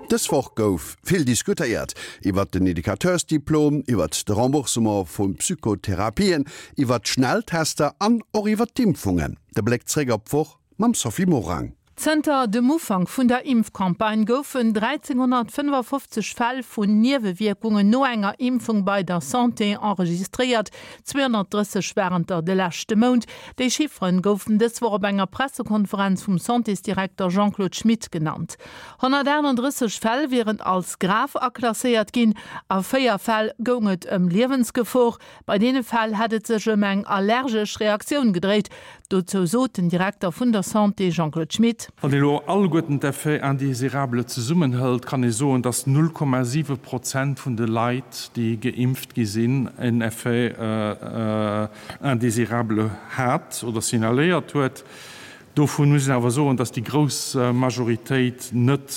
Dës Woch gouf vill diskutéiert iwwert den Educateursdiplom, iwwert de Remboursement vu Psychotherapien, iwwert d'Schnelltester an och iwwert d'Impfungen. De Bléck zréck op d'Woch mam Sophie Morang. Zënter dem Ufank vun der Impfcampagne goufen 1.355 Fäll vun Niewewierkungen no enger Impfung bei der Santé enregistréiert, 230 waren der de leschte Mount. Déi Chifferen goufen dës Woch op enger Pressekonferenz vum Santésdirekter Jean-Claude Schmit genannt. 138 Fäll wieren als grave aklasséiert ginn, a 4 Fäll goung et ëm Liewensgefor. Bei deene Fäll hätt et sech ëm eng allergesch Reaktioun gedréit. Dozou sot den Direkter vun der Santé Jean-Claude Schmit. Wann ee lo alleguerten d'Effets indésirables zesummenhëlt, kann ee soen, dass 0,7 Prozent vun de Leit, déi geimpft gi sinn, en Effet indésirable hat oder signaléiert huet. Dovun muss een awer soen, dass déi grouss Majoritéit net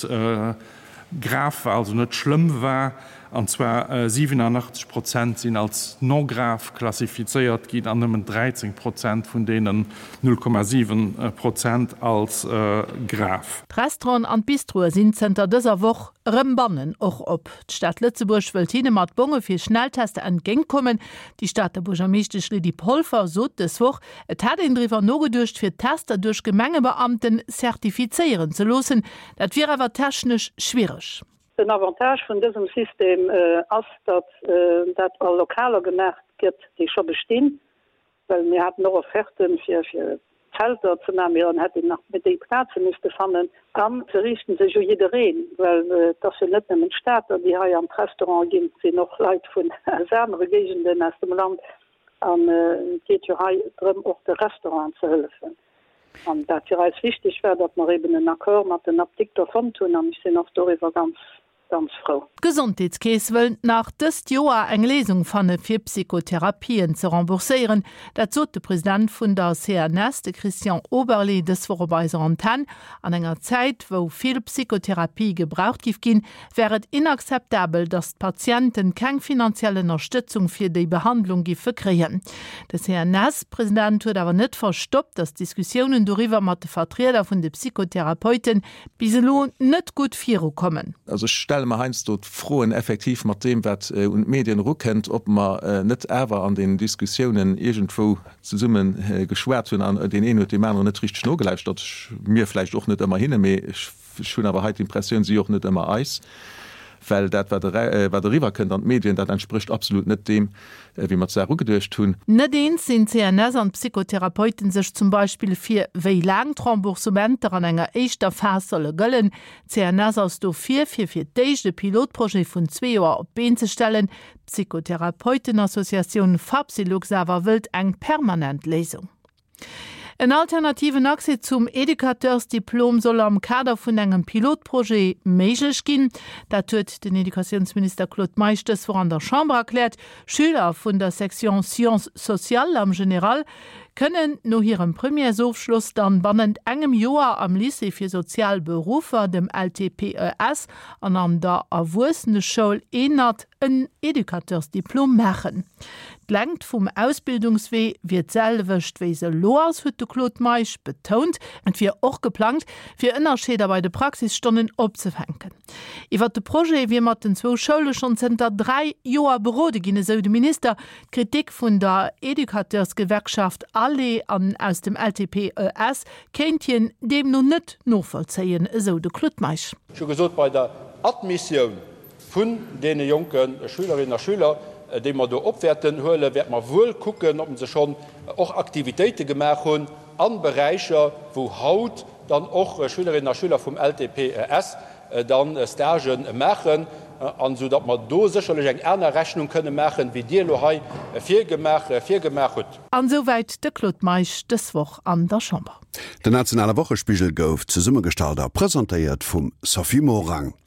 grav war, also net schlëmm war, an zwar 87 Prozent sinn als non grave klassifizéiert ginn an nëmmen 13 Prozent vun deenen 0,7 Prozent als grav. D'Restauranten an d'Bistroe sinn zënter dëser Woch erëm bannen och op. D'Stad Lëtzebuerg wëllt hinne mat Bonge fir Schnelltester entgéintkommen. Déi Stater Buergermeeschtesch Lydie Polfer sot dës Woch, Et hätt een driwwer nogeduecht, fir d'Tester duerch Gemengebeamten zertifizéieren ze loossen. Dat wier awer technesch schwiereg. Den Avantage vun dësem System ass, datt dat a Lokaler gemaach gëtt, déi scho bestinn, well mir haten och Offerten, fir Zelter ze maachen, mee dann hätt een nach déi Plaze misste fannen. A se riichten sech u jiddereen, well et ass jo net nëmmen d'Stater, déi hei an d'Restaurante ginn, et sinn och Leit vun aus anere Géigenden aus dem Land. An et geet jo hei drëm, och de Restauranten ze hëllefen. An wat fir eis wichteg war, datt mer eben en Accord mat den Apdikter fonnt hunn, an ech sinn och doriwwer ganz, ganz frou. D'Gesondheetskeess wëll nach dëst Joer eng Léisung fanne fir Psychotherapien ze rembourséieren. Dat sot de President vun der CNS, de Christian Oberlé, dës Woch op eiser Antenn. An enger Zäit, wou vill Psychotherapië gebraucht giff ginn, wär et inakzeptabel, datt d'Patienten keng finanziell Ënnerstëtzung fir déi Behandlung giffe kréien. De CNS-President huet awer net verstoppt, datt d'Diskussiounen doriwwer mat de Vertrieder vun de Psychotherapeute bis elo net gutt virukommen. Also ech stelle mer heiansdo d'Froen effektiv mat deem, wat un d'Medien erukënnt, ob mer net awer an den Diskussiounen iergendwou zesumme geschwat hunn an deen een huet deem aneren net richteg nogelauschtert, mir vläicht och net ëmmer hinne, mee ech Ech hunn awer hei d'Impressioun, si och net ëmmer eis, well dat, wat eriwwer kënnt an d'Medien, dat entsprécht absolut net deem, wéi mer d'Saach ugeduecht hunn. Net eens sinn d'CNS an d'Psychotherapeuten sech zum Beispill, fir wéi laang d'Remboursementer an enger éischter Phas solle gëllen. D'CNS ass dofir, fir fir d'éischt e Pilotprojet vun zwee Joer op d'Been ze stellen. D'Psychotherapeutenassociatioun Fapsylux awer wëllt eng permanent Léisung. En alternativen Accès zum Educateursdiplom soll am Kader vun engem Pilotprojet méiglech ginn. Dat huet den Educatiounsminister Claude Meisch dës Woch an der Chamber erkläert. Schüler vun der Section Sciences sociales am General kënnen no hirem Premièresofschloss dann bannent engem Joer am Lycée fir sozial Beruffer, dem LTPES, an an der Erwuesseneschoul ENAD en Educateursdiplom maachen. D'Längt vum Ausbildungswee wier d'selwecht wéi se elo ass, huet de Claude Meisch betount. Et wier och geplangt, fir Ënnerscheeder bei de Praxisstonnen opzefänken. Iwwer de Projet wier mat den zwou Schoule schonn zënter 3 Joer berode ginn, esou de Minister. D'Kritik vun der Educateursgewerkschaft ALLE an aus dem LTPES kéint hien deemno net novollzéien, esou de Claude Meisch. Ech hu gesot, bei der Admissioun vun deene jonke Schülerinnen a Schüler, déi mer do op wäerten huelen, wäerte mer wuel kucken, ob se schonn och Aktivitéite gemaach hunn a Beräicher, wou haut dann och Schülerinnen a Schüler vum LTPES da Stagë maachen, an esou datt mer do sécherlech eng aner Rechnung kënne maachen, wéi Dir elo hei virgemaach hutt. An esouwäit de Claude Meisch dës Woch an der Chamber. Den nationale Wochespigel gouf zesummegestallt a presentéiert vum Sophie Morang.